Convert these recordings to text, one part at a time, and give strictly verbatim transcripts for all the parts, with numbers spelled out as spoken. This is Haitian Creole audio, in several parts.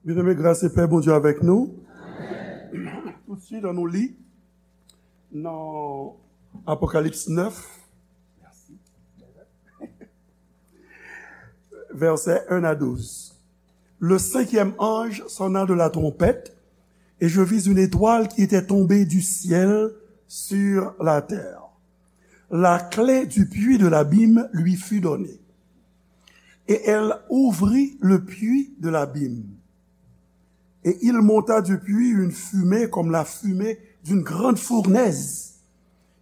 Byeneme, gras e pè Bondye avèk nou. Toutswit, ann nou li nan Apokalips nèf, vèsè en a douz. Le cinquième ange sonna de la trompette, et je vis une étoile qui était tombée du ciel sur la terre. La clé du puits de l'abîme lui fut donnée. Et elle ouvrit le puits de l'abîme. Et il monta du puits une fumée comme la fumée d'une grande fournaise.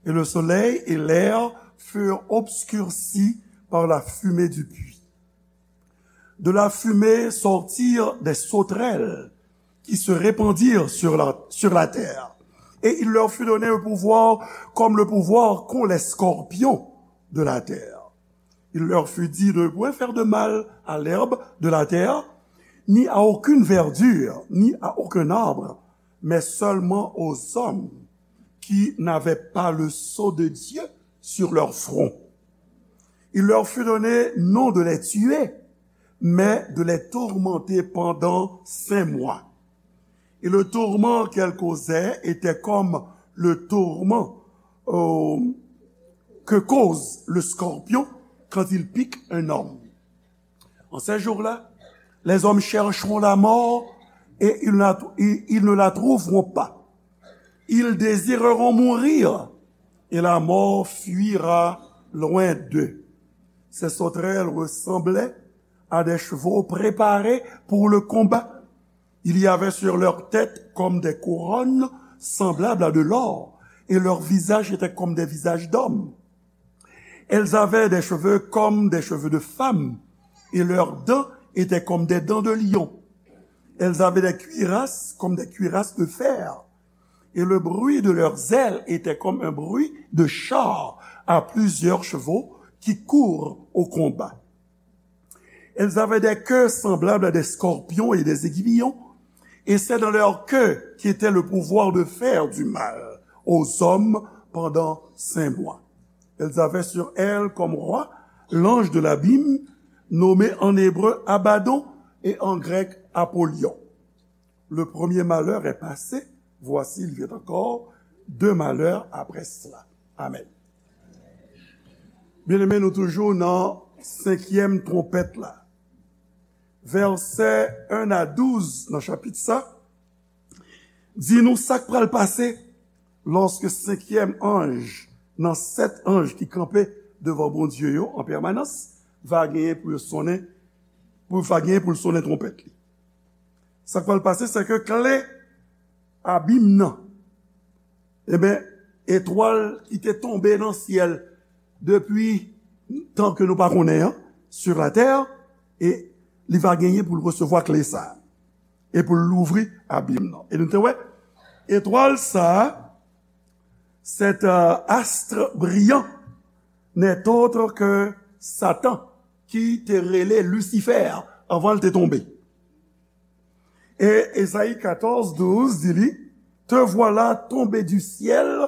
Et le soleil et l'air furent obscurcis par la fumée du puits. De la fumée sortirent des sauterelles qui se répandirent sur la, sur la terre. Et il leur fut donné un pouvoir comme le pouvoir qu'ont les scorpions de la terre. Il leur fut dit de ne point faire de mal à l'herbe de la terre, ni à aucune verdure, ni à aucun arbre, mais seulement aux hommes qui n'avaient pas le sceau de Dieu sur leur front. Il leur fut donné non de les tuer, mais de les tourmenter pendant cinq mois. Et le tourment qu'elle causait était comme le tourment, euh, que cause le scorpion quand il pique un homme. En ces jours-là, les hommes chercheront la mort et ils la- ils- ils ne la trouveront pas. Ils désireront mourir et la mort fuira loin d'eux. Ces sauterelles ressemblaient à des chevaux préparés pour le combat. Il y avait sur leur tête comme des couronnes semblables à de l'or, et leur visage était comme des visages d'hommes. Elles avaient des cheveux comme des cheveux de femmes, et leurs dents étaient comme des dents de lion. Elles avaient des cuirasses comme des cuirasses de fer, et le bruit de leurs ailes était comme un bruit de chars à plusieurs chevaux qui courent au combat. Elles avaient des queues semblables à des scorpions et des aiguillons, et c'est dans leur queue qu'était le pouvoir de faire du mal aux hommes pendant cinq mois. Elles avaient sur elles comme roi l'ange de l'abîme, nommé en hébreu Abaddon et en grec Apollyon. Le premier malheur est passé, voici, il vient encore deux malheurs après cela. Amen. Byeneme, nou toujou nan senkyèm twonpèt la. Vèsè en a douz nan chapit sa di nou sa k pral pase lòske senkyèm anj nan sèt anj ki kanpe devan Bondye yo an pèmanans va genyen pou yo sonnen, pou va genyen pou l sonnen twonpèt li. Sa k pral pase, se ke kle abim nan, ebyen, etwal ki te tonbe nan syèl depi tan ke nou pa konnen an, sur la terre, e li va genyen pou l resevwa kle sa a, e pou l louvri abim nan. E nou te wè, etwal sa a, cet, euh, astre brillant, n'est autre que Satan, ki te rele Lisifè anvan l te tonbe. E Ezayi katòz douz di li, te voilà tombé du ciel,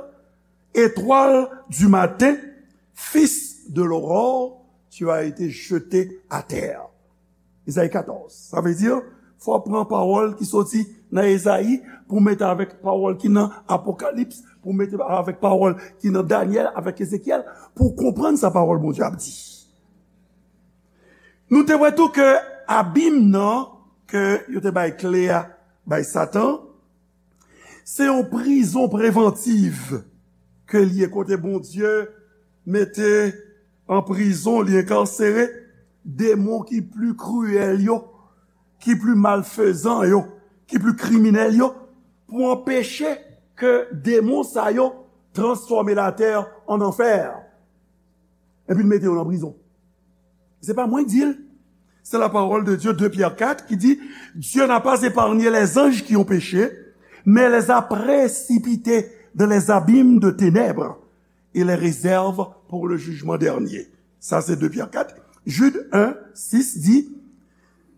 étoile du matin, fils de l'aurore, tu as été jeté à terre. Ezayi katòz. Sa vle di, fò w pran pawòl ki soti nan Ezayi pou mete avèk pawòl ki nan Apokalips, pou mete avèk pawòl ki nan Danyèl, avèk Ezekyèl, pou w konprann sa pawòl Bondye ap di. Nou te wè tou ke abim nan, ke yo te bay kle a, bay Satan, se yon prizon prevantiv ke l ye, kote Bondye mete an prizon, li enkarsere demon ki pli kriyèl yo, ki pli malfezan yo, ki pli kriminèl yo, pou anpeche ke demon sa yo transfòme latè an anfè. Epi l mete yo nan prizon. Se pa mwen k di l. C'est la parole de Dieu, deux Pierre quatre, qui dit, Dieu n'a pas épargné les anges qui ont péché, mais les a précipités dans les abîmes de ténèbres et les réserve pour le jugement dernier. Sa se deux Pierre quatre. Jude un six dit,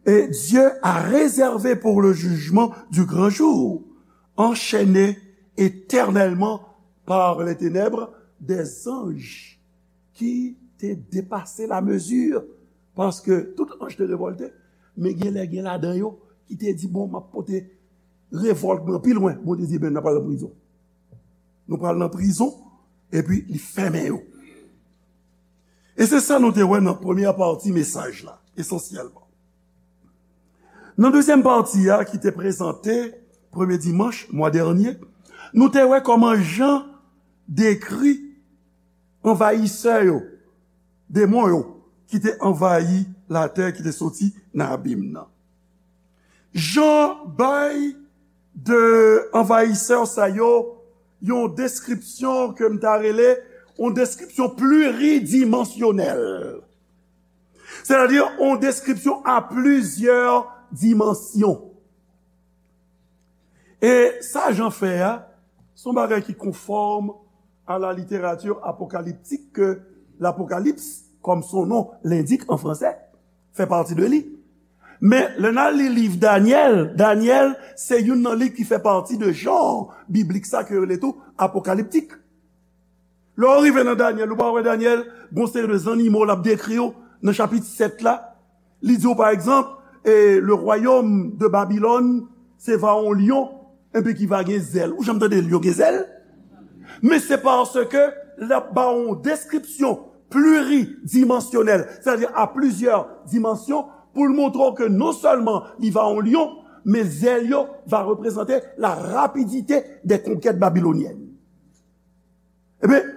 et Dieu a réservé pour le jugement du grand jour, enchaînés éternellement par les ténèbres, des anges ki te depase la mezi, paske tout anj te revòlte, men gen lè gen ladan yo ki te di, "Bon, m ap pote revòlt mwen pi lwen." Bondye di, "Ben, n ap al nan prizon. Nou pral nan prizon," epi li fèmen yo. E se sa nou te wè nan premyè pati mesaj la, esansyèlman. Nan dezyèm pati a, ki te prezante premye dimanch mwa dènye, nou te wè kòman Jan dekri anvayisè yo, demon yo, ki te anvayi latè, ki te soti nan abim nan. Jan bay de anvayisè sa yo yon deskripsyon ke m ta rele yon deskripsyon pliridimansyonèl. Sètadi yon deskripsyon a plizyè dimansyon. E sa Jan fè a, se yon bagay ki konfòm à la littérature apocalyptique que l'Apocalypse, comme son nom l'indique en français, fait partie de li. Men, lè n al li liv Danyèl, Danyèl se youn nan liv ki fè pati de jan biblik sa ke yo rele tou apokaliptik. Lè w rive nan Danyèl, ou pa wè Danyèl, gon seri de zannimo l ap dekri yo nan chapit sèt la. Li di w, pa egzanp, e, le royaume de Babylone, se va yon lyon, enben ki va gen zèl. Ou janm tande lyon gen zèl? Men se paske l ap ba w yon deskripsyon pliridimansyonèl, sètadi a plizyè dimansyon, pou l montre w ke non sèlman li va yon lyon, men zèl yo va reprezante la rapidite des conquêtes babyloniennes. Ebyen,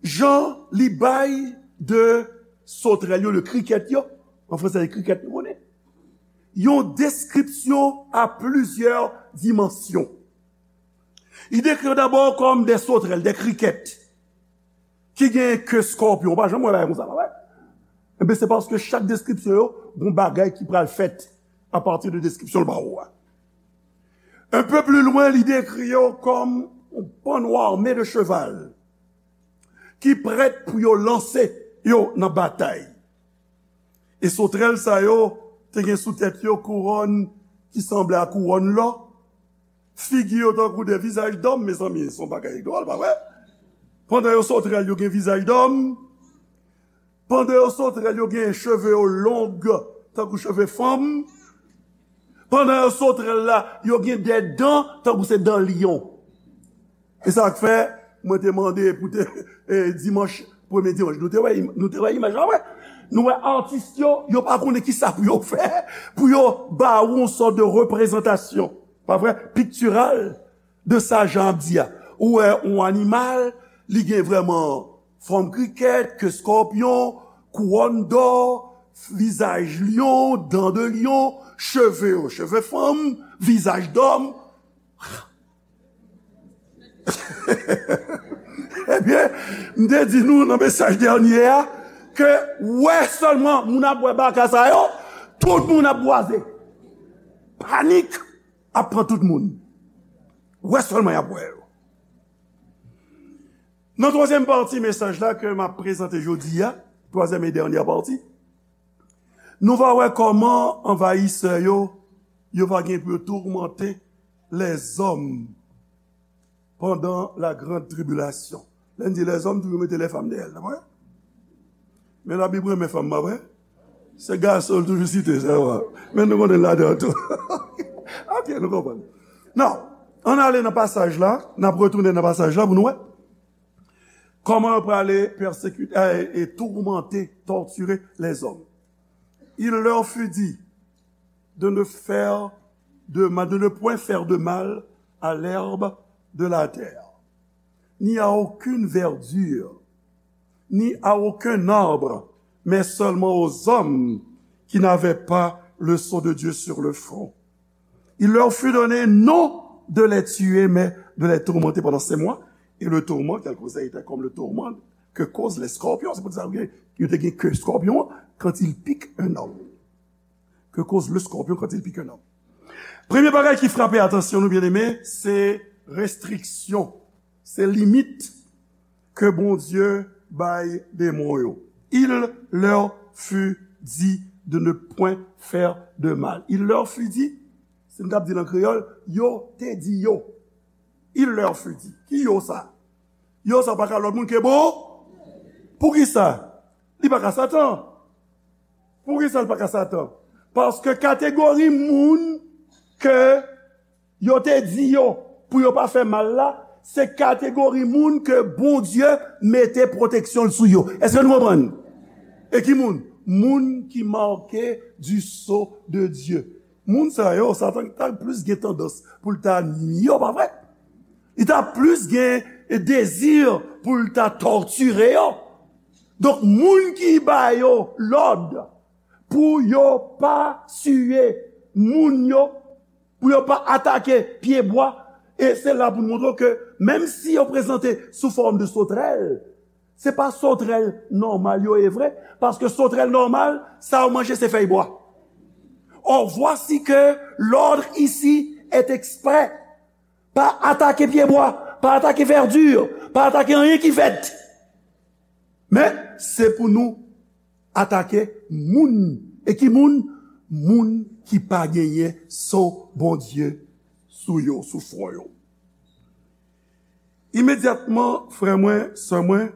Jan li bay de sotrèl yo, de krikèt yo, an franse se krikèt nou konnen, yon deskripsyon a plizyè dimansyon. Li dekri yo dabò kòm de sotrèl, de krikèt, ki gen ke skòpyon. Ou pa janm wè bagay konsa, pa vre? Enben, se paske chak deskripsyon yo, gon bagay ki pral fèt apati de deskripsyon l ba ou a. Un peu plus loin, li dekri yo kòm yon panno ame de cheval ki prèt pou yo lanse yo nan batay. E sotrèl sa yo te gen sou tèt yo kouwòn ki sanble a kouwòn lò. Figi yo tankou de vizaj dòm, mezanmi, se yon bagay dwòl, pa vre? Pandan yo sotrèl, yo gen vizaj dòm. Pandan yo sotrèl, yo gen cheve yo long, tankou cheve fanm. Pandan yo sotrèl la, yo gen de dan, tankou se dan lyon. E sa k fè, mwen te mande pou te, e, dimanch, premye dimanch, nou te wè, nou te wè imaj la, wè. Nou wè atis yo, yo pa konnen ki sa pou yo fè, pou yo ba ou yon sòt de reprezantasyon, pa vre, piktiral, de sa Jan ap di a. Ou wè yon animal, li gen vrèman fòm krikèt, ke skòpyon, kouwòn dò, vizaj lyon, dan de lyon, cheve yo, cheve fanm, vizaj dòm. Ebyen, m te di nou nan mesaj dènye a, ke wè sèlman moun ap wè baka sa yo, tout moun ap bwaze. Panik ap pran tout moun. Wè sèlman y ap wè yo. Nan twazyèm pati mesaj la ke m ap prezante jodi a, twazyèm e dènye pati, nou va wè kòman anvayisè yo, yo va gen pou yo toumante lèzòm pandan la grande tribulation. Lè n di lèzòm, toujou mete lèfanm dèyè l, pa vre? Men Labib renmen fanm, pa vre? Se gason l toujou site, se vre. Men nou konnen l ladan tou. Ok, nou konprann. Now, ann ale nan pasaj la, n ap retounen nan pasaj la pou nou wè kòman yo prale pèsekite, e, e toumante, tòtire lèzòm. Il leur fut dit de ne faire de mal, de ne point faire de mal à l'herbe de la terre, ni à aucune verdure, ni à aucun arbre, mais seulement aux hommes qui n'avaient pas le sceau de Dieu sur le front. Il leur fut donné non de les tuer, mais de les tourmenter pendant sept mois. Et le tourment qu'elle causait était comme le tourment que causent les scorpions. Se pou sa yo te gen ke scorpion quand il pique un homme. Que cause le scorpion quand il pique un homme. Premye bagay ki frape atansyon nou, byeneme, se restriksyon, se limit ke Bondye bay demon yo. Il leur fut dit de ne point faire de mal. Il leur fut dit, si m t ap di l an kreyòl, yo te di yo. Il leur fut dit. Ki yo sa? Yo sa pa ka lòt moun ke bon. Poukisa? Li pa ka Satan. Poukisa l pa ka Satan? Paske kategori moun ke yo te di yo pou yo pa fè mal la, se kategori moun ke Bondye mete pwoteksyon l sou yo. Èske nou konprann? E ki moun? Moun ki make du sceau de Dieu. Moun sa yo, Satan ta plis gen tandans pou l ta nwi yo, pa vre? Li ta plis gen dezi pou l ta tòtire yo. Donk, moun ki ba yo lòd pou yo pa tiye moun yo, pou yo pa atake pyebwa, e se la pou n montre w ke menm si yo prezante sou fòm de sotrèl, se pa sotrèl nòmal yo ye vre, paske sotrèl nòmal, sa yo manje se fèy bwa. Or, voici que l'ordre ici est exprès. Pa atake pyebwa, pa atake vèdi, pa atake anyen ki vèt. Men, se pou nou atake moun. E ki moun? Moun ki pa genyen sceau Bondye sou yo, sou fwon yo. Imedyatman, frè mwen, sè mwen,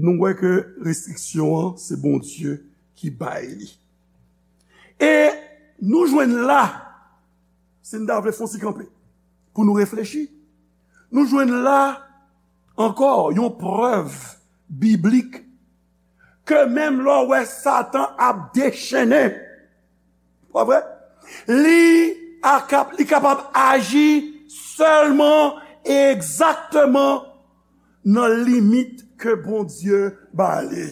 nou wè ke restriksyon an, se Bondye ki bay li. E nou jwenn la, si n ta vle fon ti kanpe, pou nou reflechi, nou jwenn la ankò yon prèv biblik ke menm lè w wè Satan ap dechennen, pa vre? Li akap-, li kapab aji sèlman e egzakteman nan limit ke Bondye ba li.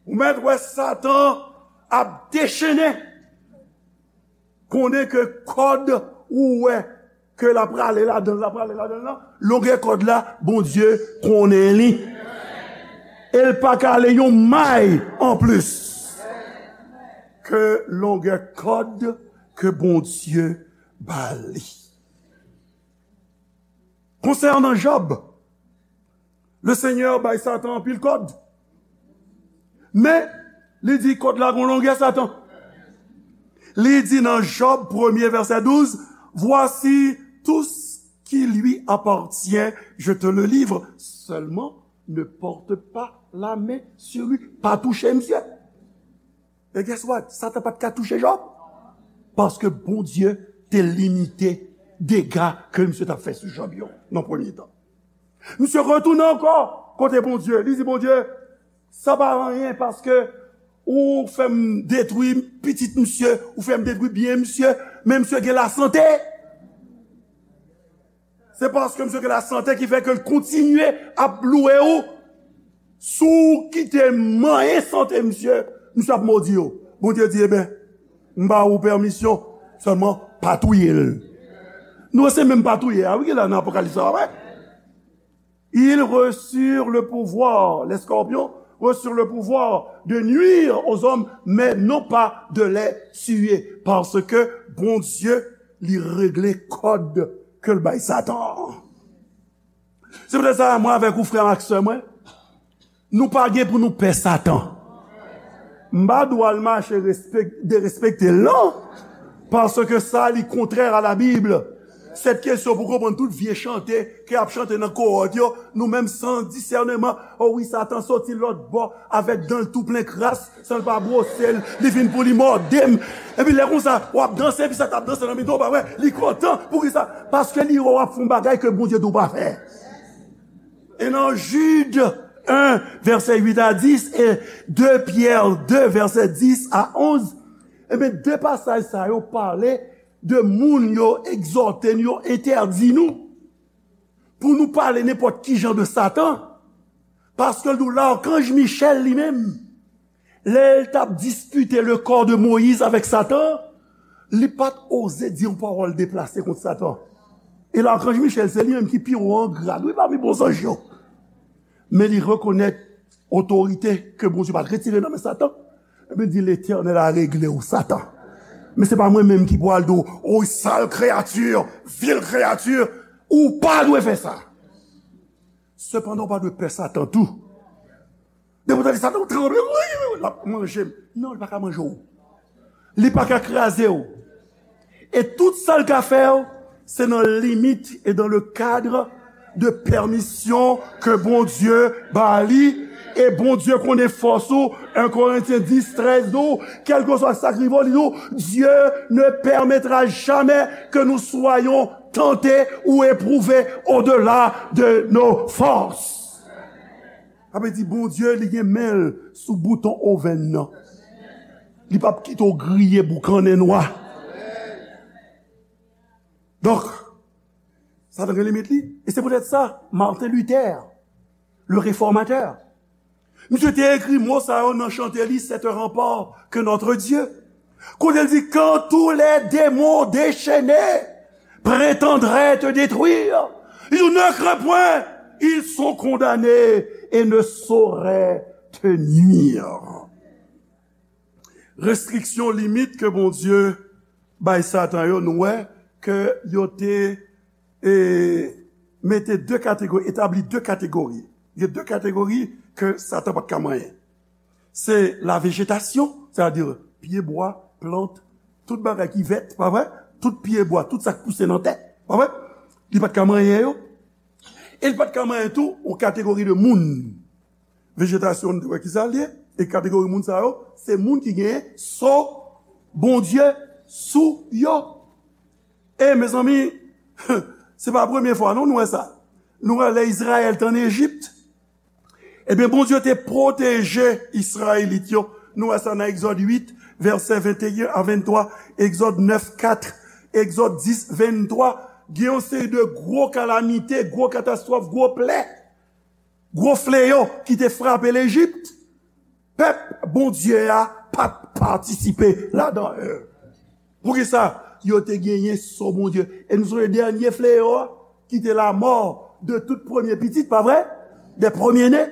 Ou mèt wè Satan ap dechennen. Konnen ke kòd ou wè ke l ap rale ladan l, l ap rale ladan l lan, longè kòd la, Bondye konnen li. E l pa ka ale yon may anplis ke longè kòd ke Bondye ba li. Konsènan Jòb, Lesenyè bay Satan anpil kòd. Men, li di kòd la gon longè, Satan. Li di nan Jòb premye vèsè douz, voici tout ce qui lui appartient, je te le livre. Seulement, ne porte pas la main sur lui. Pa touche misye. E guess what? Satan pa t ka touche Jòb. Paske Bondye te limite dega ke misye t ap fè sou Jòb yo nan premye tan. Misye retounen ankò kote Bondye. Li di Bondye, sa pa anyen paske ou fè m detwi pitit misye, ou fè m detwi byen misye, men misye gen lasante. Se paske misye gen lasante ki fè ke l kontinye ap louwe ou. Si w kite manyen sante misye, misye ap modi w. Bondye di, eben, m ba ou pèmisyon, sèlman pa touye l. Nou se menm pa touye a, wi, ki la nan Apokalips la, wè. Ils reçurent le pouvoir, les scorpions reçurent le pouvoir de nuire aux hommes, mais non pas de les tuer, paske Bondye, li regle kòd ke l bay Satan. Se poutèt sa, mwen avèk ou, frè m ak sè mwen, nou pa gen pou nou pè Satan. M pa di w al mache respek-, derespekte l, non. Paske sa, li kontrè a la Bib. Sèt kesyon pou konprann tout vye chante ke y ap chante nan kowòt yo, nou menm san disèneman, o wi, Satan soti lòt bò avèk dan l tou plen kras, san l pa bwose l, li vin pou li mòde m. Epi lè konsa, w ap danse, epi sa t ap danse nan mitan w, pa wè, li kontan. Poukisa? Paske li wè w ap fè yon bagay ke Bondye di w pa fè. E nan Jid en, vèsè uit a dis, e de Pyè de, vèsè dis a onz, ebyen, de pasaj sa yo pale de moun yo egzòte n, yo entèdi nou pou nou pale nenpòt ki jan de Satan. Paske l di w, lakanj Michèl li menm, lè l t ap dispite le corps de Moïse avèk Satan, li pa t oze di yon pawòl deplase kont Satan. E lakanj Michèl, se li menm ki pi wo an grad, wi, pami bon zanj yo. Men li rekonèt otorite ke Bondye pa t retire nan men Satan. Ebyen, di, Letènèl a regle w, Satan. Men se pa mwen menm ki pral di w, o sal kreyati, vil kreyati, ou pa dwe fè sa. Sepandan, ou pa dwe pè Satan tou. Depi w tande Satan, ou tranble, wi, wi, wi, l ap manje m. Non, li pa ka manje w. Li pa ka kraze w. E tout sa l ka fè w, se nan limit e dans le cadre de pèmisyon ke Bondye ba li. E Bondye konnen fòs ou. En Korentyen dis trèz di w, kèlkeswa sa k rive w, li di w, Dieu ne permettra jamais que nous soyons tentés ou éprouvés au-delà de nos forces. Sa vle di Bondye, li gen men l sou bouton ovèn nan. Li p ap kite w griye boukannen nwa. Donk, Satan gen limit li. E se poutèt sa, Martin Luther, le réformateur, misye te ekri mo sa yo nan chante li, C'est un rempart que notre Dieu. Kote l di, Quand tous les démons déchaînés prétendraient te détruire, li di, Ne crains point, ils sont condamnés et ne sauraient te nuire. Restriksyon, limit ke Bondye bay Satan yo, nou wè ke yo te e, mete de kategori, etabli de kategori. Gen de kategori ke Satan pa t ka manyen. Se la vejetasyon, sètadi pye bwa, plant, tout bagay ki vèt, pa vre? Tout pye bwa, tout sa k pouse nan tè, pa vre? Li pa t ka manyen yo. E li pa t ka manyen tou yon kategori de moun. Vejetasyon, nou te wè kisa l ye. E kategori moun sa yo, se moun ki gen so Bondye sou yo. E, mezanmi, se pa premye fwa, non, nou wè sa. Nou wè lè Izrayèl te ann Ejip, ebyen, Bondye te pwoteje Izrayelit yo. Nou wè sa nan Egzòd uit, vèsè venteyen a venntwa, Egzòd nèf kat, Egzòd dis venntwa. Gen yon seri de gwo kalamite, gwo katastwòf, gwo plè, gwo fleyo ki te frape Lejip. Pèp Bondye a pa t patisipe ladan l. Poukisa? Yo te genyen so Bondye. E nou sonje dènye fleyo a, ki te lamò de tout premye pitit, pa vre? De premye ne.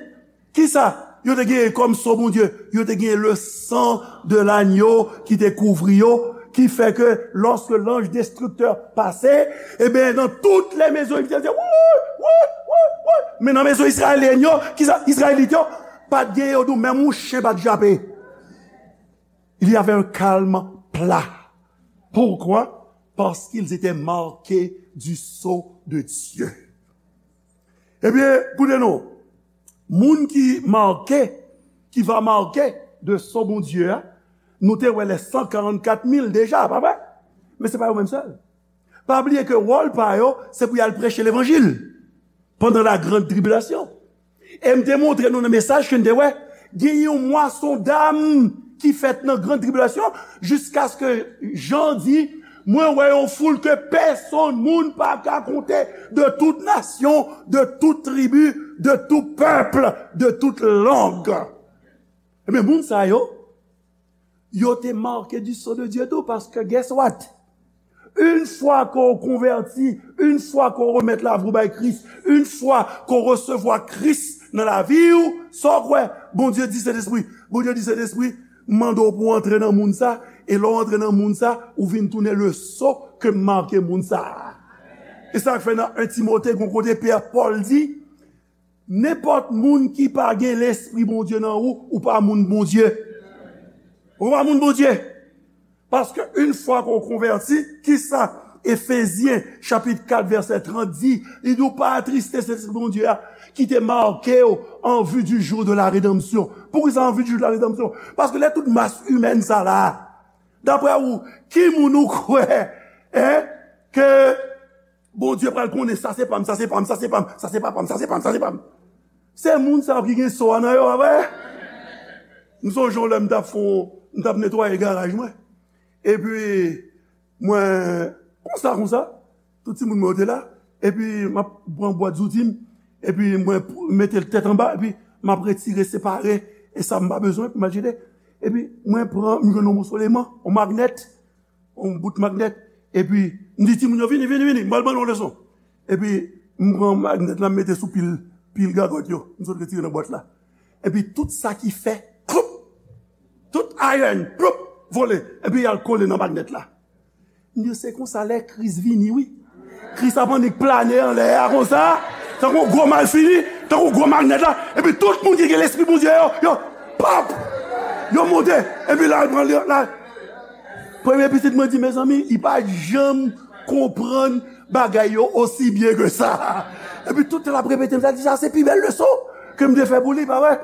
Kisa yo te genyen kòm so Bondye? Yo te genyen le sang de l'agneau ki te kouvri yo, ki fè ke lòske lanj destriktè pase, ebyen, nan tout lè mezon Ejiptyen, se woy, woy, woy, woy. Men nan mezon Izrayelyen yo, kisa? Izrayelit yo, pa t gen yo dou, menm yon chen pa t jape. Il y avait un calme plat. Pourquoi? Parce qu'ils étaient marqués du sceau de Dieu. Ebyen, koute non, moun ki make, ki va make de sceau Bondye a, nou te wè les cent quarante-quatre mille deja, pa vre? Men se pa yo menm sèl. Pa bliye ke wòl pa yo, se pou y al preche levanjil pandan la grande tribulation. E m te montre nou nan mesaj ke n te wè, gen yon mwason dam ki fèt nan grande tribulation, jiskaske Jan di, Mwen wè yon foul ke pèsonn moun pa ka konte, de tout nasyon, de tout tribi, de tout pèp, de tout lang. Ebyen, moun sa yo, yo te make du sceau de Dieu tou, paske guess what? Une fois que w konvèti, une fois que w remèt lavi w bay Kris, une fois que w resevwa Kris nan lavi w, sa w kwè? Bondye di Sentespri. Bondye di Sentespri, m mande w pou w antre nan moun sa, e lè w antre nan moun sa, ou vin tounen le sceau ke m make moun sa a. E sa k fè nan en Timote, gon kote Pè Pòl di, Nenpòt moun ki pa gen Lespri Bondye nan ou, ou pa moun Bondye. Ou pa moun Bondye. Paske une fois qu'on converti, kisa Efezyen chapit kat vèsè trant di? Li di, ou pa atriste Sentespri Bondye a, ki te make w en vue du jour de la rédemption. Poukisa en vue du jour de la rédemption? Paske lè tout mas imèn sa la, daprè ou, ki moun ou kwè, en, ke Bondye pral konnen sa se pa m, sa se pa m, sa se pa m, sa se pa m, sa se pa m, sa se pa m. Se moun sa yo ki gen so a nan yo, pa vre? M sonje yon lè m t ap fè yon, m t ap netwaye garaj mwen. Epi, mwen, konsa, konsa, tout timoun mwen yo te la. Epi, m ap pran bwat zouti m. Epi, mwen p-, mete l tèt anba. Epi, m ap retire, separe. E sa m pa bezwen, epi m al jete. Epi, mwen pran, m jwenn yon moso leman, yon magnèt. Yon bout magnèt. Epi, m di timoun yo, vini, vini, vini, m pral ban nou yon leson. Epi, m pran magnèt la, m mete sou pil, pil gagòt yo. M sot retire nan bwat la. Epi, tout sa ki fè, ploup! Tout ayèn, ploup! Vole. Epi, y al kole nan magnèt la. M di, se konsa lè Kris vini, wi. Kris ap annik plane anlè a konsa, tankou yon gwo malfini, tankou yon gwo magnèt la. Epi, tout moun ki gen Lespri Bondye yo, yo, pap! Yo monte. Epi, la, l pran, la, Premye pitit mwen di, mezanmi, li pa janm konprann bagay yo osi byen ke sa. Epi tout tan l ap repete, m ta di, sa se pi bèl leson ke m te fè pou li, pa vre?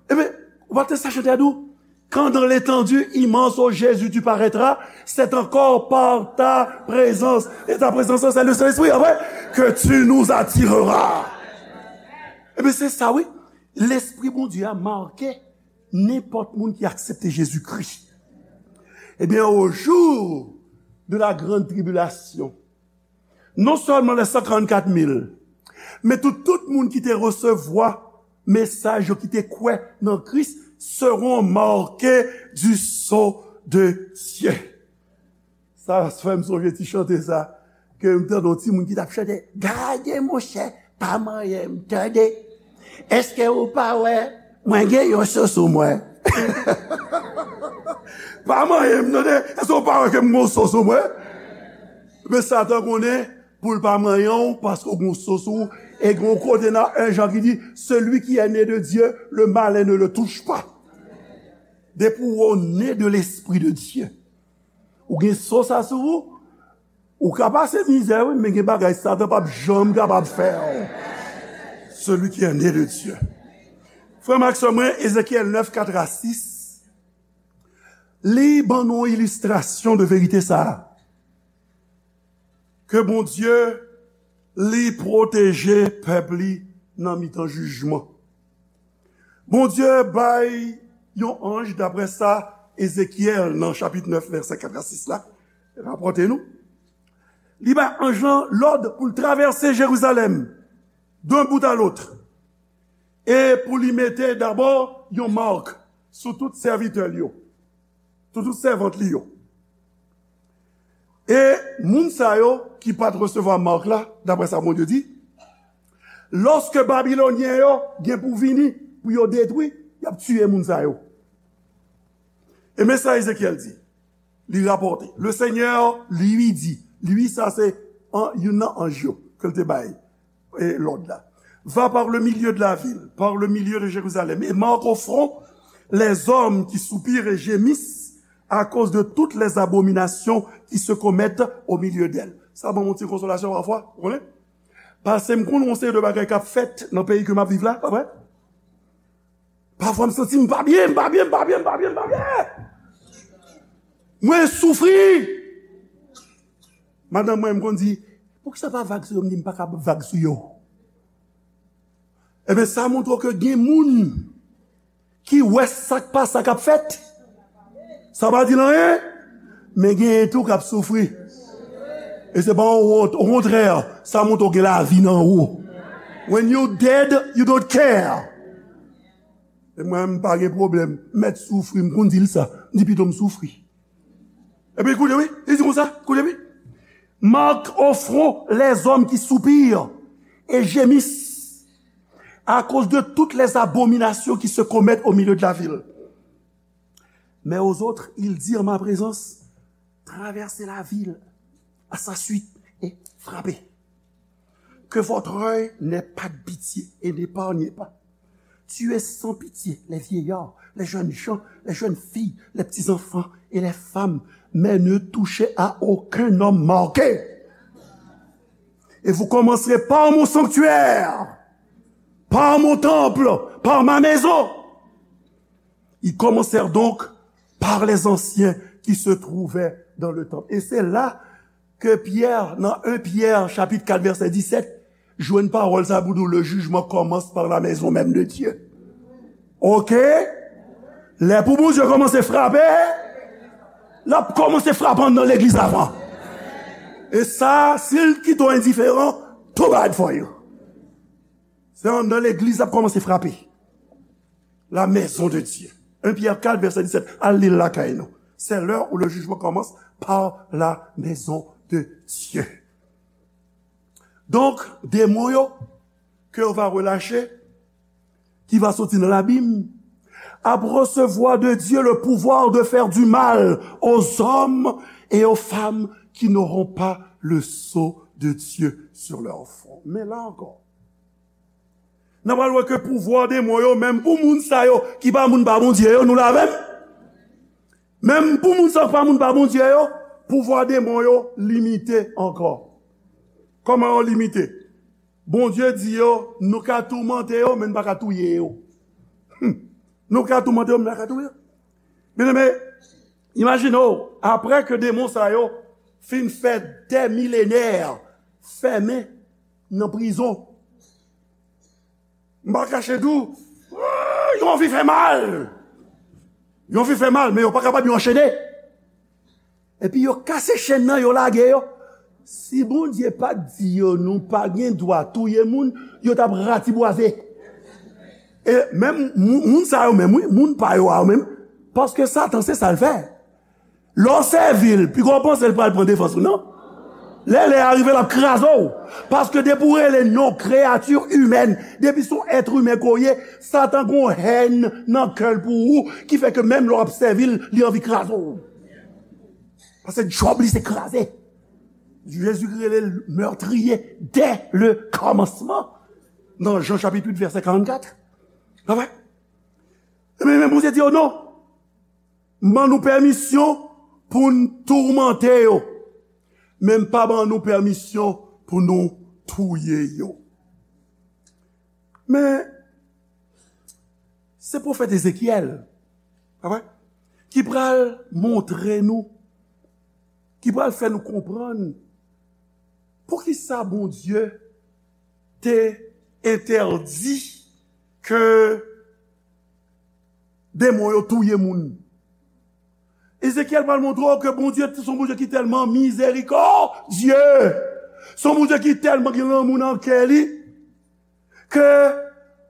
Epi, ou pa te sa chante a di w, quand dans l'étendue immense, ô Jésus, tu paraîtras, c'est encore par ta présence et ta présence, c'est le Saint-Esprit, pa vre, que tu nous attireras. Epi se sa, wi. Lespri Bondye a make nenpòt moun ki aksepte Jezikri. Ebyen, au jour de la grande tribulation, non sèlman les cent quarante-quatre mille, men tout, tout moun ki te resevwa mesaj yo, ki te kwè nan Kris, seront marqués du sceau de Dieu. Sa fè m sonje ti chante sa, ke m tande yon timoun ki t ap chante, gade monchè, pa manyen m, tande. Èske ou pa wè, mwen gen yon so sou mwen? Pa manyen m, tande. Èske ou pa wè ke m gen yon so sou mwen? Men Satan konnen pou l pa manyen w, paske w gen yon so sou ou. E gen yon kote nan en Jan ki di, celui qui est né de Dieu, le malin ne le touche pas. Depi w ne de l'Esprit de Dieu, ou gen so sa sou ou, ou ka pase mizè, wi, men gen bagay Satan p ap janm kapab fè w. Celui qui est né de Dieu. Frè m ak sè mwen, Ezekyèl nèf, kat a sis, li ban nou yon ilistrasyon de verite sa a. Ke Bondye, li pwoteje pèp li nan mitan jijman. Bondye bay yon anj, daprè sa Ezekyèl nan chapit nèf, vèsè kat a sis la, rapòte nou. Li bay anj lan lòd pou l travèse Jerizalèm, d'un bout à l'autre, e pou li mete dabò yon mak sou tout sèvitè l yo, sou tout sèvant li yo. E moun sa yo ki pa t resevwa mak la, daprè sa Bondye di, lòske Babilonyen yo gen pou vini pou yo detwi, y ap tiye moun sa yo. E men sa Ezekyèl di, li rapòte, le Seigneur lui dit, lui sa se an, youn nan anj yo ke l te bay e, lòd la. Va par le milieu de la ville, par le milieu de Jérusalem, et marque au front les hommes qui soupirent et gémissent à cause de toutes les abominations qui se commettent au milieu d'elle. Sa ban m yon ti konsolasyon pafwa, ou konnen? Paske m konn yon seri de bagay k ap fèt nan peyi ke m ap viv la, pa vre? Pafwa m santi m pa byen, m pa byen, m pa byen, m pa byen, m pa byen. Mwen soufri. Madanm mwen, m konn di, poukisa pa vag sou yo? M di, m pa ka vag sou yo. Ebyen, sa montre w ke gen moun ki wè sa k pa sa k ap fèt. Sa pa di l anyen, men genyen tou k ap soufri. E se pa yon wont, okontrè, sa montre w gen lavi nan ou. When you dead, you don't care. E mwen, m pa gen pwoblèm. M mèt soufri, m konn di l sa. M di pito m soufri. Epi koute wi, li di konsa, koute wi. Marque au front les hommes qui soupirent et gémissent à cause de toutes les abominations qui se commettent au milieu de la ville. Mais aux autres, il dit en ma présence, traversez la ville à sa suite et frappez. Que votre œil n'ait pas de pitié et n'épargnez pas. Tuez sans pitié les vieillards, les jeunes gens, les jeunes filles, les petits-enfants et les femmes, mais ne touchez à aucun homme marqué. Et vous commencerez par mon sanctuaire, par mon temple, par ma maison. Ils commencèrent donc par les anciens qui se trouvaient dans le temple. Et c'est là ke Pyè, nan en Pyè, chapit kat, vèsè disèt, jwenn pawòl sa pou di w, le jugement commence par la maison même de Dieu. Oke? Lè pou Bondye kòmanse frape, l ap kòmanse frape anndan legliz avan. E sa, si l kite w endiferan, too bad for you. Se anndan legliz l ap kòmanse frape. La maison de Dieu. En Pyè kat, vèsè disèt. Al li l lakay nou. C'est l'heure où le jugement commence par la maison de Dieu. Donk, demon yo, ke yo va relache, ki va soti nan labim, ap resevwa de Dieu le pouvoir de faire du mal aux hommes et aux femmes qui n'auront pas le sceau de Dieu sur leur front. Men la ankò, n ap pral wè ke pouvwa demon yo, menm pou moun sa yo ki pa moun pa Bondye yo, nou la avè m? Menm pou moun sa yo ki pa moun pa Bondye yo, pouvwa demon yo limite ankò. Kòman yo limite? Bondye di yo, nou ka toumante yo, men nou pa ka touye yo. Hmm. Nou ka toumante yo, men nou pa ka touye yo. Byeneme, imajine w, apre ke demon sa yo fin fè dè milenè fèmen nan prizon, m pa kache di w, yo anvi fè mal. Yo anvi fè mal, men yo pa kapab, yo anchene. Epi yo kase chenn nan, yo lage yo. Si Bondye pa t di yo nou pa gen dwa touye moun, yo t ap ratibwaze. E menm moun, moun sa yo menm, wi, moun pa yo a yo menm, paske Satan se sa l fè. Lè w sèvi l, piga w panse l pral pran defans ou, non? Lè lè a rive, l ap kraze w. Paske depi w rele non kreyati imèn, depi se yon èt imen ke w ye, Satan gen yon hèn nan kè l pou ou, ki fè ke menm lè w ap sèvi l, li anvi kraze w. Paske djòb li se kraze. Jezi rele l meurtrier dès le commencement. Nan Jan chapit uit, vèsè karannkat. Pa vre? Men, men Bondye di yo non. M ban nou pèmisyon pou n toumante yo, men m pa ban nou pèmisyon pou nou touye yo. Men, se pwofèt Ezekyèl, pa vre, ki pral montre nou, ki pral fè nou konprann poukisa Bondye te entèdi ke demon yo touye moun. Ezekyèl pral montre w ke Bondye se yon Bondye ki tèlman mizerikòdye, se yon Bondye ki tèlman gen lanmou nan kè li, ke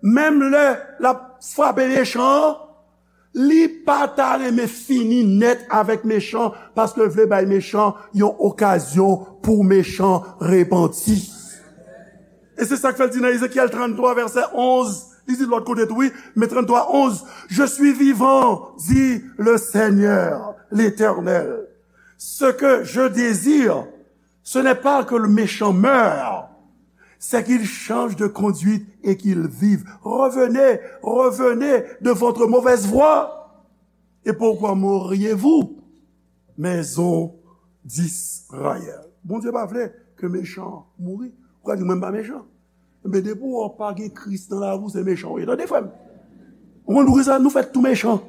menm lè l ap frape mechan an, li pa ta renmen fini nèt avèk mechan, paske l vle bay mechan yon okazyon pou mechan repanti. E se sa k fè l di nan Ezekyèl tranntwa, vèsè onz, li di lòt kote tou, wi, men tranntwa onz, Je suis vivant, dit le Seigneur, l'Éternel. Ce que je désire, ce n'est pas que le méchant meure, c'est qu'il change de conduite et qu'il vive. Revenez, revenez de votre mauvaise voie. Et pourquoi mourriez-vous, maison d'Israël? Bondye pa vle ke mechan mouri. Ou ka di, "Mwen m pa mechan." Men depi w pa gen Kris nan lavi w, se mechan w ye. Tande, frè m. Ou konn poukisa nou fèt tou mechan?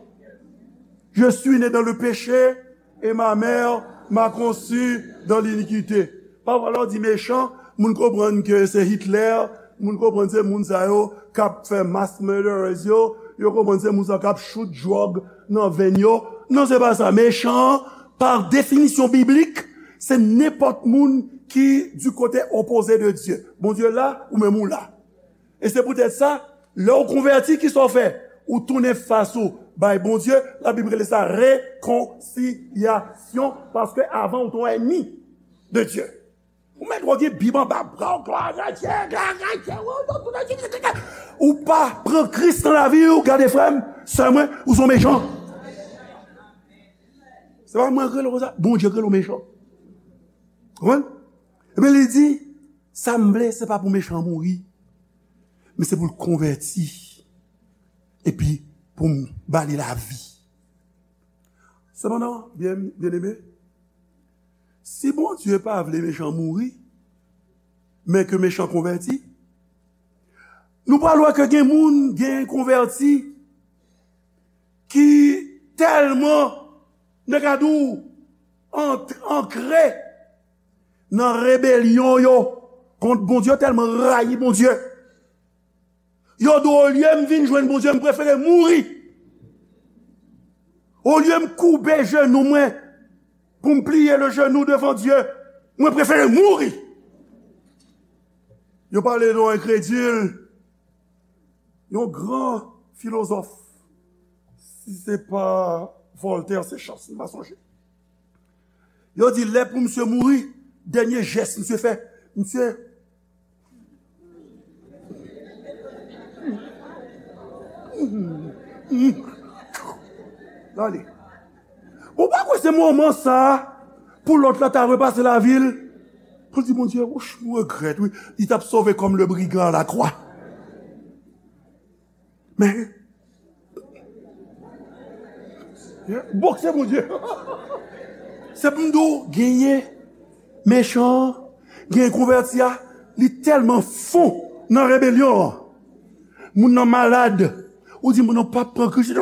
Je suis né dans le péché et ma mère m'a conçu dans l'iniquité. Pafwa, lè w di mechan, moun konprann ke se Hitler, moun konprann se moun sa yo k ap fè mass murderers yo, yo konprann se moun sa yo k ap chout dwòg nan venn yo. Non, se pa sa. Mechan an, pa definisyon biblik, se nenpòt moun ki du côté opposé de Dieu. Bondye la, ou menm ou la. E se poutèt sa, lè w konvèti, kisa w fè? Ou tounen fas ou bay Bondye, Labib rele sa rekonsilyasyon, paske avan ou te yon ènmi de Dye. Ou mèt wè gen Bib anba bra w, glwa a Dye, glwa a Dye, ou pa pran Kris nan lavi w, gade frè m, sè mwen, ou se yon mechan. Se pa mwen k rele w konsa, Bondye k rele w mechan. Konprann? Ebyen, li di, sa m vle, se pa pou mechan an mouri, men se pou l konvèti, epi pou m ba li lavi. Sepandan, byen, byeneme, si Bondye pa vle mechan mouri, men ke mechan konvèti, nou pral wè ke gen moun gen konvèti ki tèlman, nèg a di w, ant-, ankre nan rebelyon yo kont Bondye, tèlman rayi Bondye. Yo di, olye m vin jwenn Bondye, m prefere mouri. Olye m koube jenou mwen pou m pliye le jenou devan Dye, mwen prefere mouri. Yo pale de yon enkredil, yon gran filozòf. Si se pa Voltaire, se Chance, m pa sonje. Yo di, lè pou misye mouri, dènye jès misye fè, misye L ale. Ou pa kwè se moman sa a pou lòt la ta repase lavi l pou l di, Bondye, wouch, m regrèt, wi. Li t ap sove kòm le brigand à la croix. Men, bòkse Bondye. Se pou m di w, genyen mechan an, Gen konvèti a, li tèlman fon nan rebelyon an. Moun nan malad, ou di moun nan p ap pran Kris.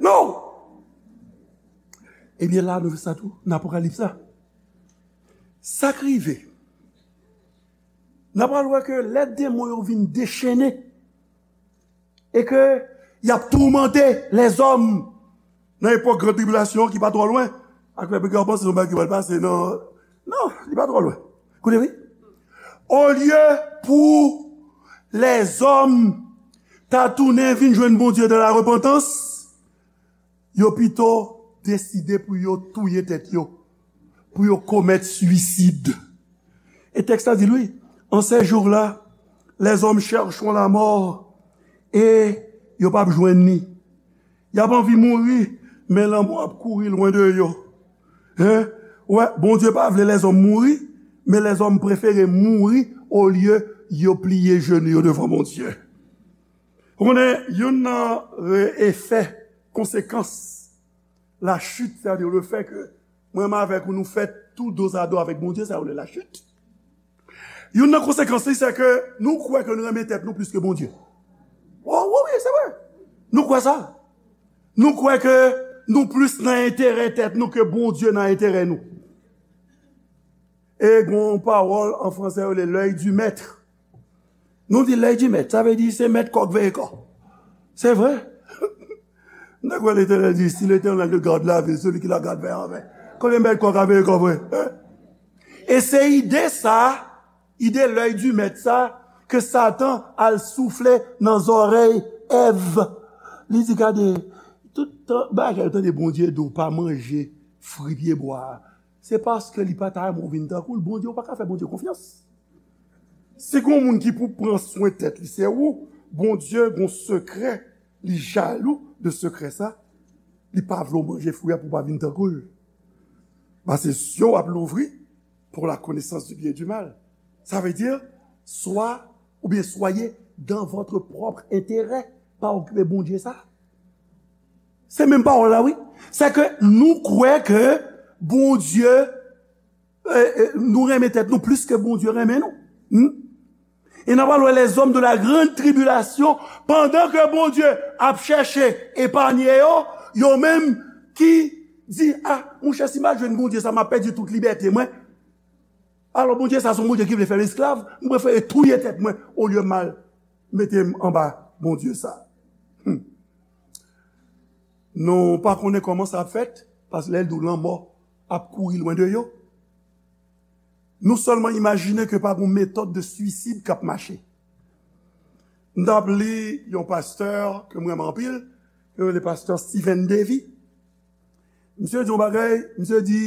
Non! Ebyen la, nou wè sa tou, nan Apokalips la. Sa k rive? N ap pral wè ke lè demon yo vin dechennen e ke y ap toumante lèzòm nan epòk gran tribilasyon ki pa twò lwen, ak pèp yo panse se yon bagay ki pral pase nan, non, li pa twò lwen. Koute wi. Olye pou lèzòm ta tounen vin jwenn Bondye dan la repantans, yo pito deside pou yo touye tèt yo, pou yo komèt swisid. E tèks la di l, wi, en ces jours-là, les hommes chercheront la mort et yo p ap jwenn li. Y ap anvi mouri, men lanmò ap kouri lwen de yo. Hein? Wè, Bondye pa vle lèzòm mouri, men lèzòm prefere mouri olye yo pliye jenou yo devan Bondye. Ou konnen, youn nan re-, efè, konsekans lachit, sètadi lefètke mwen menm avèk ou, nou fèt tou dozado avèk Bondye, sa yo rele lachit. Youn nan konsekans li, se ke nou kwè ke nou renmen tèt nou plis ke Bondye. Wi, wi, wi, se vre. Nou kwè sa. Nou kwè ke nou plis nan enterè tèt nou ke Bondye nan enterè nou. E gen yon pawòl an fransè, yo rele l'œil du maître. Nou di l'œil du maître, sa vle di se mèt kò k veye kò. Se vre. Nèg wè Letènèl di, si l'Éternel ne garde la ville, celui qui la garde veille en vain. Konbyen mèt kò ka veye kò vre? Hein? E se ide sa, ide l'œil du maître sa, ke Satan al soufle nan zòrèy Èv. Li di, gade, tout tan, bagay, tande Bondye di w pa manje fwi pyebwa a. Se paske li pa ta renmen w vin tankou l. Bondye, ou pa ka fè Bondye konfyans. Si gen yon moun ki pou pran swen tèt li, se ou. Bondye gen yon sekrè, li jalou de sekrè sa. Li pa vle w manje fwi a pou w pa vin tankou l. Paske zye w ap louvri pour la connaissance du bien et du mal. Sa vle di, swa, oubyen soyez dans votre propre intérêt. Pa okipe Bondye sa. Se menm pawòl la, wi. Se ke nou kwè ke Bondye, e, e, nou renmen tèt nou plis ke Bondye renmen nou. Hmm? E n ap al wè lèzòm de la grande tribulation, pandan ke Bondye ap chèche epanye yo, yo menm ki di, a, monchè, si m al jwenn Bondye sa, m ap pèdi tout libète mwen. Alò, Bondye sa, se yon Bondye ki vle fè m esklav, m prefere touye tèt mwen, olye m al mete m anba Bondye sa. Hmm. Nou pa konnen kòman sa ap fèt, paske lè l di w lanmò ap kouri lwen de yo, nou sèlman imajine ke pa gen yon metòd de swisid k ap mache. M t ap li yon pastè ke m renmen anpil, yo rele pastè Steven Davy. Misye di yon bagay, misye di,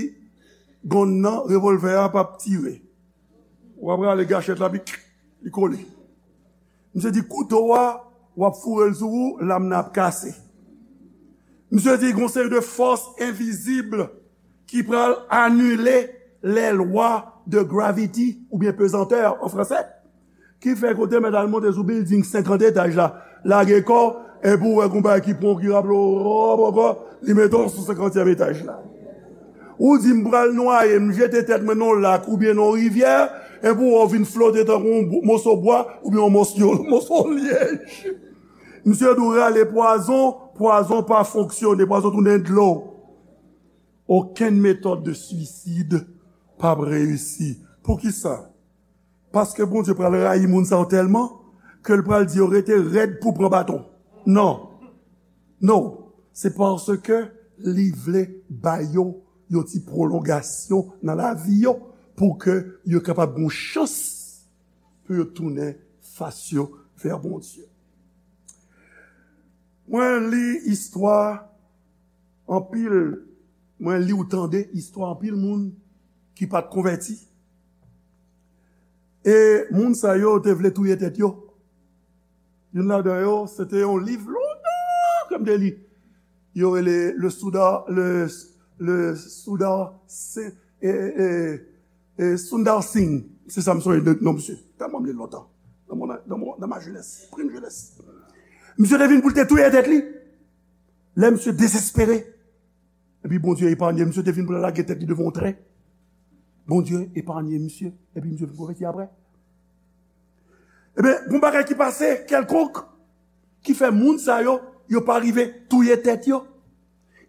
gonn nan, revòlvè a p ap tire. W ap rale gachèt la, pi li kole. Misye di kouto a, w ap foure l sou ou, lam nan ap kase. Misye di gon seri de fòs envizib ki pral anile les lois de gravity, oubyen pezantè an fransè. Ki fè kote mèt al monte sou bilding senkant etaj la, lage kò, epi w wè gon bagay ki pran w ki raple w, hop, ankò, li mete w sou senkantyèm etaj la. Ou di, "M pral nwaye, m jete tèt mwen nan yon lak oubyen nan yon rivyè," epi w wè w vin flote tankou yon bo-, moso bwa oubyen yon moso, moso lyèj. Misye di w rale pwazon, pwazon pa fonksyone, pwazon tounen dlo. Okenn metòd de swisid p ap reyisi. Poukisa? Paske Bondye pral rayi moun sa yo tèlman ke l pral di yo rete rèd pou pran baton. Non. Non. Se paske li vle ba yo yon ti pwolongasyon nan lavi yo pou ke yo kapab gen yon chans pou yo tounen fas yo vè Bondye. Mwen li istwa anpil, mwen li ou tande istwa anpil moun ki pa t konvèti. E moun sa yo te vle touye tèt yo. Youn ladan yo, se te yon liv lontan ke m te li. Yo rele le Sundar, le, le Sundar, se, e, e, e, Sundar Singh. Se sa m sonje de non misye. Tèlman m li l lontan. Dans mon, dans mon, dans ma jeunesse, prime jeunesse. Misye te vin pou l te touye tèt li. Lè misye dezespere, epi Bondye epanye, misye te vin pou l lage tèt li devan yon tren. Bondye epanye misye, epi misye vin konvèti apre. Ebyen, gon bagay ki pase kèlkonk ki fè moun sa yo, yo pa rive touye tèt yo.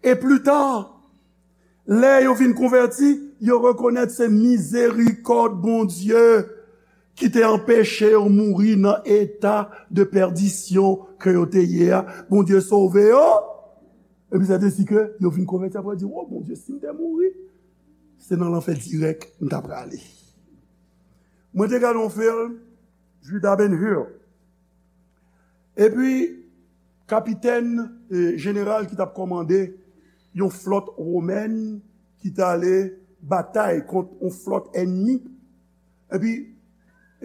E pli ta, lè yo vin konvèti, yo rekonèt se mizerikòd Bondye ki te anpeche yo mouri nan eta de pèdisyon ke yo te ye a. Bondye sove yo. Epi sa te si ke yo vin konvèti apre di, "O Bondye, si m te mouri, se nan lanfè dirèk m ta prale." Mwen te gade yon fim, Judah Ben Hur. Epi, kapitèn, e, jeneral ki t ap kòmande yon flòt womèn ki t ale batay kont yon flòt ènmi. Epi,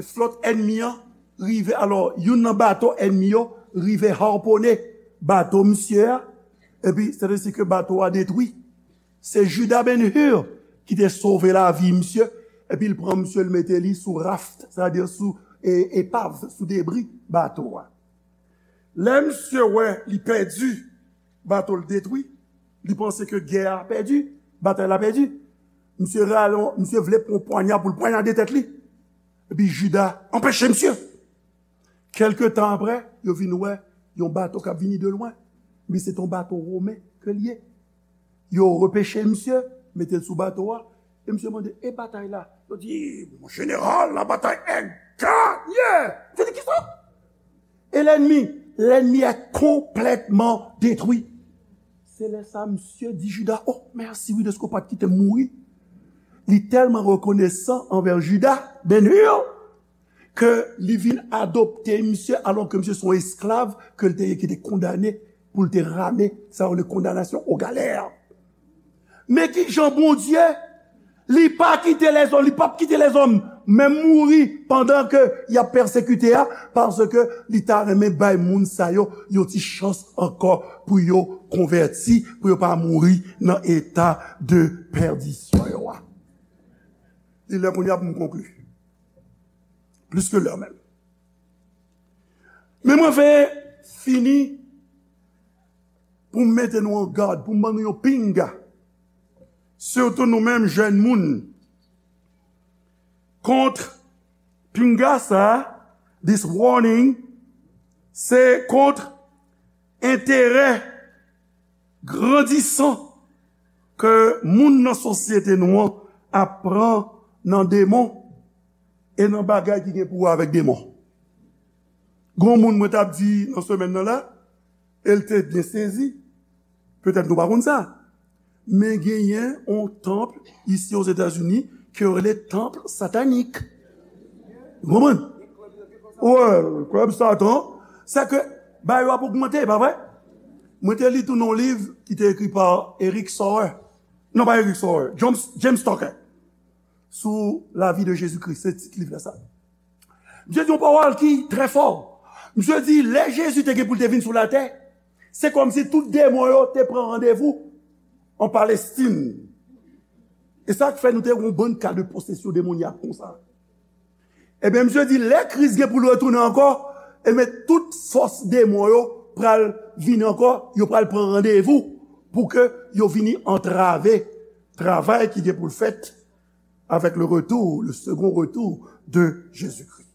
flòt ènmi an rive, alò, youn nan bato ènmi yo rive harponnen bato misye a. Epi, se te si ke bato a detwi. Se Judah Ben Hur ki te sove lavi misye, epi l pran misye, l mete li sou raft, sètadi sou e, epav, sou debri bato a. Lè misye wè li pèdi, bato l detwi, li panse ke gè a pèdi, batay la pèdi. Misye rale, misye vle pran pwanya pou l pwanyade tèt li. Epi Juda anpeche misye. Kèlke tan apre, yo vin wè yon bato k ap vini de lwen. Men se t yon bato women ke l ye. Yo repeche misye, mete l sou bato a, e misye mande, "E batay la?" Yo di, "Mon jeneral, la bataille est gagnée!" Misye di, "Kisa?" E lènmi, lènmi est complètement détruit. Se lè sa, misye di Juda, "O, mèsi wi dèske w pa t kite m mouri." Li tèlman rekonesan anvè Juda, Ben Hur, ke li vin adopte misye, alò ke misye se yon esklav ke l te ye ki te kondane pou l te rame, sa yo rele condamnation aux galères. Men ki jan Bondye, li pa kite lèzòm, li p ap kite lèzòm menm mouri pandan ke y ap pèsekite a, paske li ta renmen bay moun sa yo yon ti chans ankò pou yo konvèti, pou yo pa mouri nan eta de pèdisyon yo a. Li lè kounye a pou m konkli. Plis ke lè menm. Men mwen vle fini pou m mete nou an gad, pou m ban nou yon pinga. Sitou nou menm jèn moun. Kont pinga sa, this warning, se kont enterè grandisan ke moun nan sosyete nou an ap pran nan demon e nan bagay ki gen pou wè avèk demon. Gon moun mwen t ap di nan semèn nan la, e l te byen sezi. Petèt nou pa konn sa. Men genyen yon tanp isi Ozetazini ke yo rele tanp satanik. Ou konprann? Wè, klèb Satan. Sèke bagay yo ap ogmante, pa vre? Mwen te li tou nan yon liv ki te ekri pa Eric Sauer. Non, pa Eric Sauer, James, James Tucker. Sou la vie de Jésus-Christ, se tit liv la sa. Misye di yon pawòl ki trè fò. Misye di, lè Jezi te gen pou l te vin sou latè, se kòmsi tout demon yo te pran randevou an Palestin. E sa k fè nou te yon bann ka de posesyon demonyak konsa. Ebyen, misye di, lè Kris gen pou l retounen ankò, ebyen, tout fòs demon yo pral vini ankò, yo pral pran randevou pou ke yo vini antrave travay ki gen pou l fèt avec le retour, le second retour de Jésus-Christ.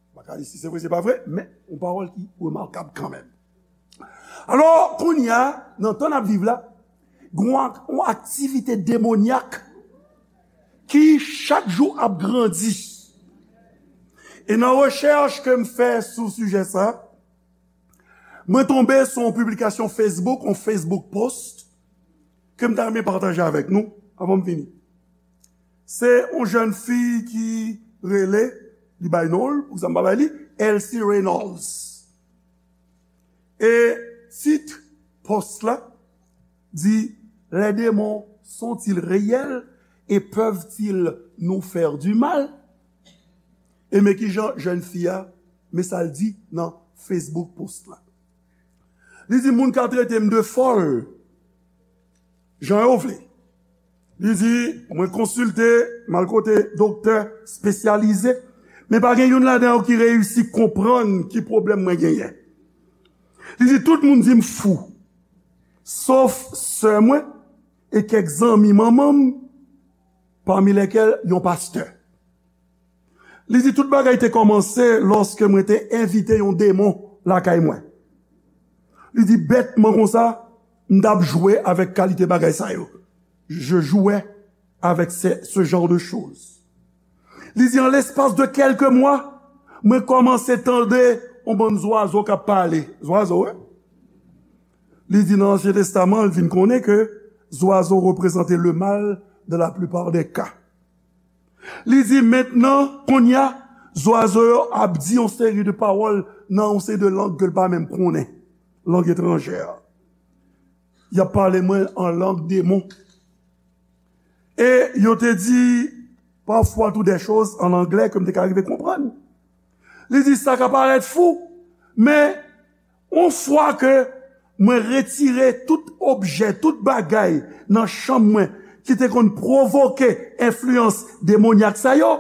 M pa ka di si se vre, se pa vre, men yon pawòl ki remakab kanmenm. Alò, kounye a, nan tan n ap viv la, gen yon ak-, yon aktivite demonyak ki chak jou ap grandi. E nan rechèch ke m fè sou sijè sa, mwen tonbe sou yon piblikasyon Facebook, yon Facebook post, ke m ta renmen pataje avèk nou, avan m fini. Se yon jèn fi ki rele, li bay non l, pou sa m pa bay li, Elsie Reynolds. E tit post la di, "Les démons sont-ils réels et peuvent-ils nous faire du mal?" E men ki jan jèn fi a, men sa l di nan Facebook post la. Li di, "Moun ka trete m de fòl jan yo vle." Li di, "Mwen konsilte, m al kote doktè espesyalize, men pa gen youn ladan yo ki reyisi konprann ki pwoblèm mwen genyen." Li di, "Tout moun di m fou, sof sè mwen e kèk zanmi manman m, pami lèkèl yon pastè. Li di, tout bagay te kòmanse lòske mwen te envite yon demon lakay mwen. Li di, bètman konsa, m t ap jwe avèk kalite bagay sa yo. Je jouais avec ce, ce genre de choses. Li di, an lespas de kèlke mwa, mwen kòmanse tande yon bann zwazo k ap pale. Zwazo, wi. Li di, nan Ansyen Testaman, l vin konnen ke zwazo reprezante le mal dans la plupart des cas. Li di, mentnan, kounye a, zwazo yo ap di yon seri de pawòl nan yon seri de lang ke l pa menm konnen, lang etranjè. Y ap pale mwen an lang demon. E yo te di pafwa tou de choz an anglè ke m te ka rive konprann. Li di, sa ka parèt fou, men yon fwa ke mwen retire tout objè, tout bagay nan chanm mwen ki te konn pwovoke enfliyans demonyak sa yo,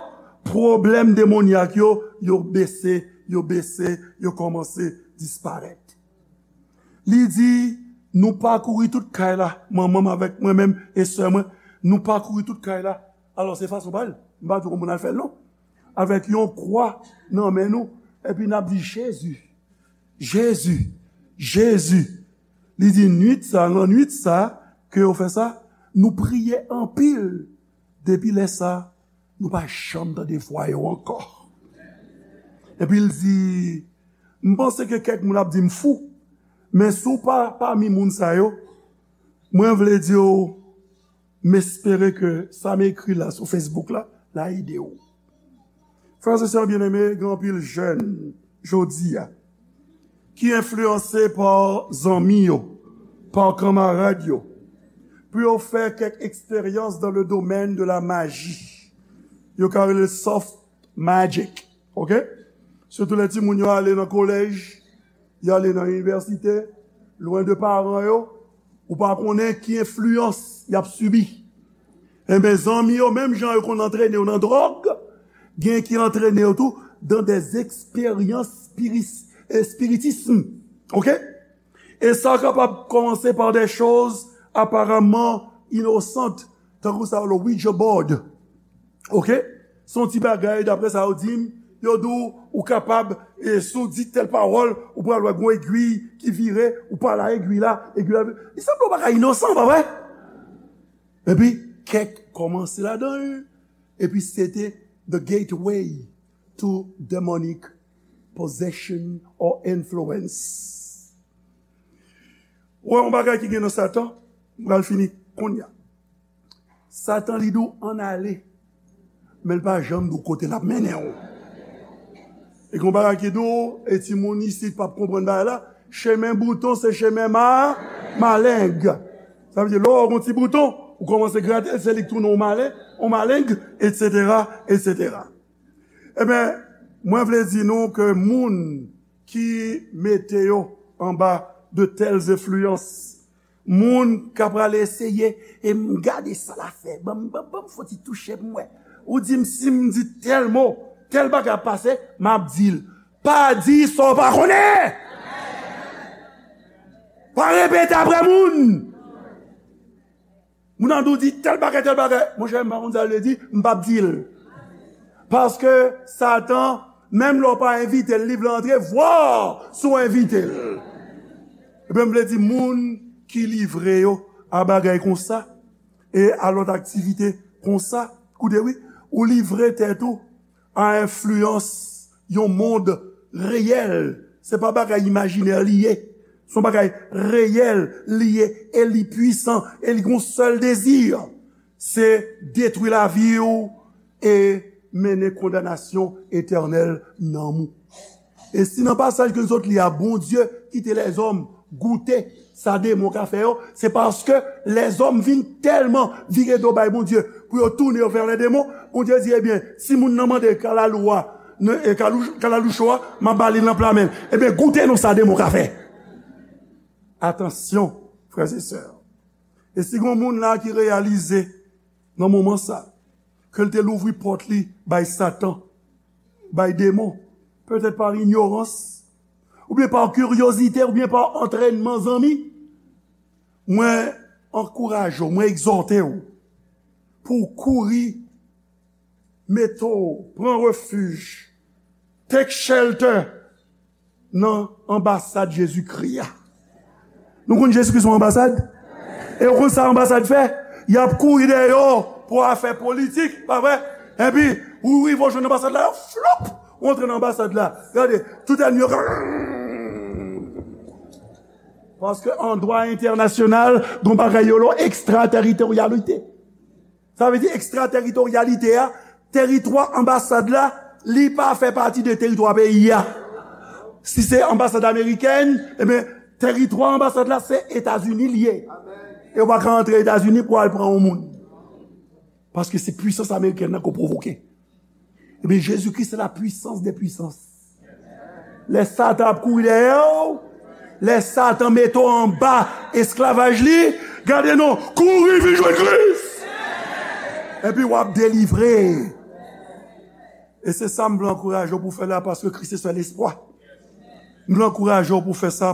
pwoblèm demonyak yo, yo bese, yo bese, yo kòmanse disparèt. Li di, nou pakouri tout kay la, manman m avèk mwen menm e sè mwen, nou pakouri tout kay la. Alò, se fason pa l. M pa di w kòman moun al fè l, non. Avèk yon kwa nan men nou, epi n ap di, Jezi, Jezi, Jezi. Li di, nwit sa, nan nwit sa, ke yo fè sa, nou priye anpil. Depi lè sa, nou pa janm tande vwa yo ankò. Epi l di, m panse ke kèk moun ap di m fou, men si w pa pami moun sa yo, mwen vle di w, m espere ke sa m ekri la sou Facebook la, la ede w. Frè e sè byeneme, gen anpil jèn jodi a ki enfliyanse pa zanmi yo, pa kanmarad yo, pou yo fè kèk eksperyans dans le domaine de la magie. Yo ka rele soft magic, oke? Sitou lè timoun yo ale nan kolèj, y ale nan inivèsite, lwen de paran yo, ou pa konnen ki enfliyans y ap sibi. Enben, zanmi yo, menm jan yo konn antrene yo nan dwòg, gen ki antrene yo tou dans des expériences spiris- eh, spiritism. Oke? E sa kapab kòmanse pa de choz aparamman inosant, tankou sa yo le Ouija board. Oke? Se yon ti bagay, daprè sa yo di m, yo di w, ou kapab, e, si w di tèl pawòl, ou pral wè gon egwi ki vire, ou pale a egwi la, egwi la vire. Li sanble yon bagay inosan, pa vre? Epi, kèk kòmanse ladan l, epi se te the gateway to demonic possession or influence. Ou wè yon bagay ki gen nan Satan, m pral fini kounye a. Satan li di w ann ale, men l pa janm di w kote l ap mennen w. E gen yon bagay ki di w, e timoun isit p ap konprann bagay la, chemen bouton se chemen ma, maleng. Sa vle di, lè w wè yon ti bouton, ou kòmanse grate l, se li k tounen yon malen, yon maleng, etsetera, etsetera. Ebyen, mwen vle di nou ke moun ki mete yo anba de tèl enfliyans, moun k ap prale eseye, e m gade sa l ap fè, ban m, ban m, ban m fon ti touche pou m wè. Ou di m, si m di tèl mo, tèl bagay ap pase, m ap di l. Pa di sa w pa konnen! Pa repete apre moun! Moun nan di w di tèl bagay, tèl bagay. Monchè, m pa konn sa l vle di, m p ap di l. Paske Satan, menm lè w pa envite l, li vle antre, vwa si w envite l. Ebyen, m vle di, moun ki livre yo a bagay konsa, e a lòt aktivite konsa, koute wi, ou livre tèt ou a enfliyans yon mond reyèl. Se pa bagay imajinè li ye. Se yon bagay reyèl li ye, e li pwisan, e li gon sèl dezi. Se detwi lavi w e mennen kondanasyon etènèl nanm ou. E si nan pasaj ke n sot li a, Bondye kite lèzòm goute sa demon ka fè yo, se paske lèzòm vin tèlman vire do bay Bondye pou yo tounen yo vè lèdemon, Bondye di, ebyen, si moun nan mande kalalou a, nan, e, kalou-, kalaloucho a, m ap ba li l nan pla men l. Ebyen, goute non sa demon ka fè. Atansyon, frè e sè. E si gon moun la ki reyalize nan moman sa, ke l te louvri pòt li bay Satan, bay demon, petèt pa inyorans, oubyen pa kiryozite, oubyen pa antrènman zanmi, mwen ankouraje w, mwen egzòte w pou w kouri, mete w, pran refij, take shelter nan anbasad Jezikri a. Nou konn Jezikri se yon anbasad? E w konn sa anbasad fè? Y ap kouri dèyè w pou afè politik, pa vre? Epi, ou rive w jwenn anbasad la, yo floup! Ou antre nan anbasad la. Gade, tout ènmi yo. Paske an dwa entènasyonal, gon bagay yo rele ekstrateritoryalite. Sa vle di ekstrateritoryalite a, teritwa anbasad la, li pa fè pati de teritwa peyi a. Si se anbasad amerikèn, ebyen, teritwa anbasad la, se Etazini li ye. E w pa ka antre Etazini pou al pran yon moun. Paske se pwisans amerikèn nan k ap pwovoke. Ebyen, Jezikri se la puissance des puissances. Lè Satan ap kouri dèyè w, lè Satan mete w anba esklavaj li, gade non, kouri vin jwenn Kris. Epi w ap delivre. E se sa m vle ankouraje w pou w fè la, paske Kris se sèl espwa. M vle ankouraje w pou w fè sa,